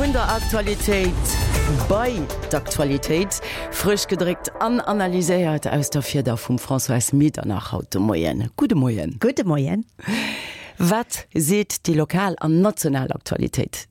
Vun der Aktualitéit bei d'Aktualitéit, frësch gedréckt an analyséiert aus der Fieder vum Françoise Medernach haut de Moien. Gudde Moien. Gudde Moien. Wat seet déi lokal an national Aktualitéit?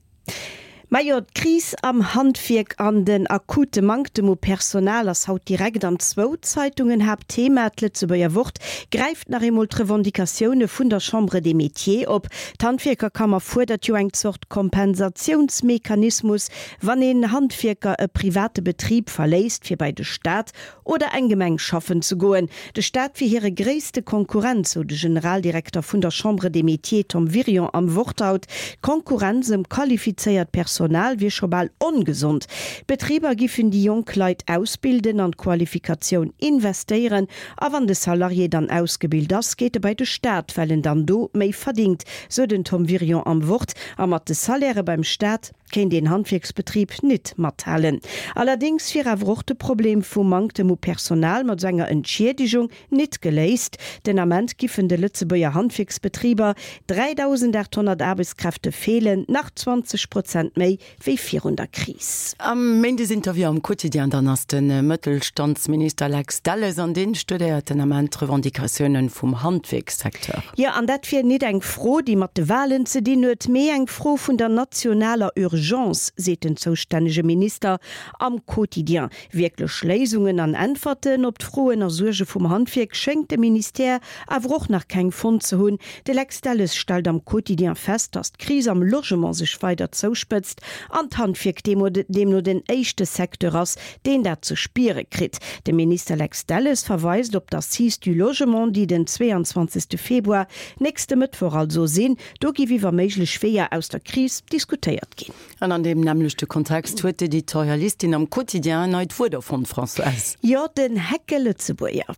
Majo, d'Kris am Handwierk an den akute Manktem u Personal ass haut direkt an zwou Zeitungen Haaptthema. D'Lëtzebuerger Wort gräift nach eemol d'Revendicatioune vun der Chambre des Métiers op. D'Handwierkerkammer fuerdert jo eng Zort Kompensatiounsmechanismus, wann een Handwierker e private Betrib verléisst, fir bei de Staat oder eng Gemeng schaffen ze goen. De Staat wier hire gréisste Konkurrent, sou de Generaldirekter vun der Chambre des Métiers Tom Wirion am Wort haut. D'Konkurrenz ëm qualifizéiert Personal wier scho bal ongesond. D'Betriber giffen déi jonk Leit ausbilden, an d'Qualifikatioun investéieren a wann de Salarié dann ausgebilt ass, geet e bei de Staat, well en dann do méi verdingt, sou den Tom Wirion am Wort. A mat de Salairë beim Staat kéint een Handwierksbetrib nit mathalen. Allerdéngs wier awer och de Problem vum Manktem u Personal mat esou enger Entschiedegung nit geléist. Den Ament giffen de Lëtzebuerger Handwierksbetriber 3.800 Aarbechtskräfte feelen, nach 20 Prozent méi wéi virun der Kris. Am Méindesinterview am Quotidien dann ass de Mëttelstandsminister Lex Delles an deen studéiert den Ament d'Revendicatiounen vum Handwierkssecteur. Jo, an dat wier nit eng Fro, déi mat de Walen ze dinn huet, mee eng Fro vun der nationaler Urgence, seet den zoustännege Minister am Quotidien. Wierklech Léisungen an Äntwerten op d'Froen a Suerge vum Handwierk schéngt de Ministère awer och nach keng fonnt ze hunn. De Lex Delles stellt am Quotidien fest, datt d'Kris am Logement sech weider zouspëtzt an d'Handwierk deemno den éischte Secteur ass, deen dat ze spiere kritt. De Minister Lex Delles verweist op d'Assises du logement, déi den 22. Februar, nächste Mëttwoch also, sinn. Do giff iwwer méiglech Weeër aus der Kris diskutéiert ginn. An an deem nämmlechte Kontext huet d'Editorialistin am Quotidien en neit Wuert erfonnt, Françoise. Jo, den Heckelëtzebuerger.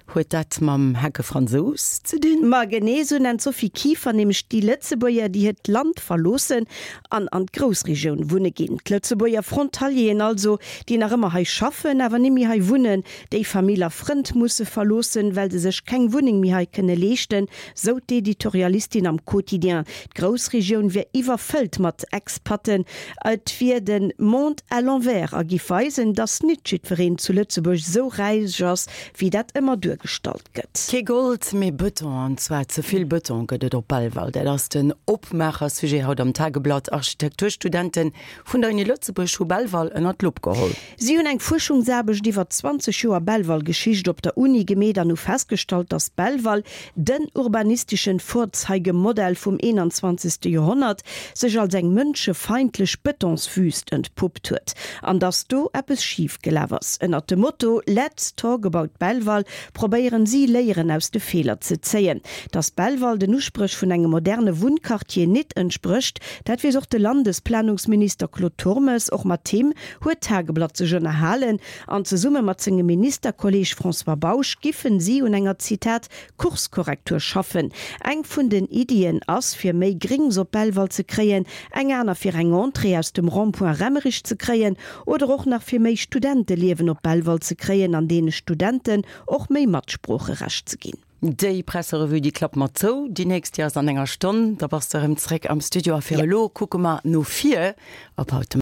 Huet dat mam Heckefransous ze dinn? Ma genee esou nennt d'Sophie Kieffer nämlech déi Lëtzebuerger, déi hiert Land verloossen an an d'Groussregioun wunne ginn. D'Lëtzebuerger Frontalieren also, déi nach ëmmer hei schaffen, awer nimmi hei wunnen, déi Famill a Frënd musse verloossen, well se sech keng Wunneng méi hei kënne leeschten, sou d'Editorialistin am Quotidien. D'Groussregioun wier iwwerfëllt mat Expaten. Et wier de Monde à l'envers a giff weisen, datt nit jiddwereen zu Lëtzebuerg sou räich ass, wéi dat ëmmer duergestallt gëtt. Kee Gold, mee Bëton, an zwar ze vill Bëton gëtt et op Belval. Dat ass den Opmaacher-Sujet haut am Tageblatt. Architekturstudente vun der Uni Lëtzebuerg hu Belval ënner d'Lupp geholl. Si hunn eng Fuerschungsaarbecht iwwer 20 Joer Belval-Geschicht op der Uni gemeet an hu festgestallt, datt Belval, den urbanistischen Vorzeigemodell vum 21. Joerhonnert, sech als eng mënschefeindlech Betonswüst entpuppt huet an datt do eppes schif gelaf ass. Ënnert dem Motto Let's talk about Belval probéieren si, Léieren aus de Feeler ze zéien. Datt Belval den Uspréch vun engem moderne Wunnquartier nit entsprécht, dat weess och de Landesplanungsminister Claude Turmes. Och mat him huet d'Tageblatt sech ënnerhalen an zesumme mat sengem Ministerkolleeg François Bausch giffen si un enger, Zitat, Kurskorrektur schaffen. Eng vun den Iddien ass, fir méi Grings op Belval ze kréien, eng aner fir eng Entrée aus dem Rond-point Remmerich ze kréien oder och nach fir méi Studenteliewen op Belval ze kréien an deene Studenten och méi Matsproocherecht ze ginn. Déi Presserevue, déi klappe mer zou. Déi nächst, déi ass an enger Stonn. Da bass de erëm zréck am Studio. A fir elo kucke mer no vir op haut de.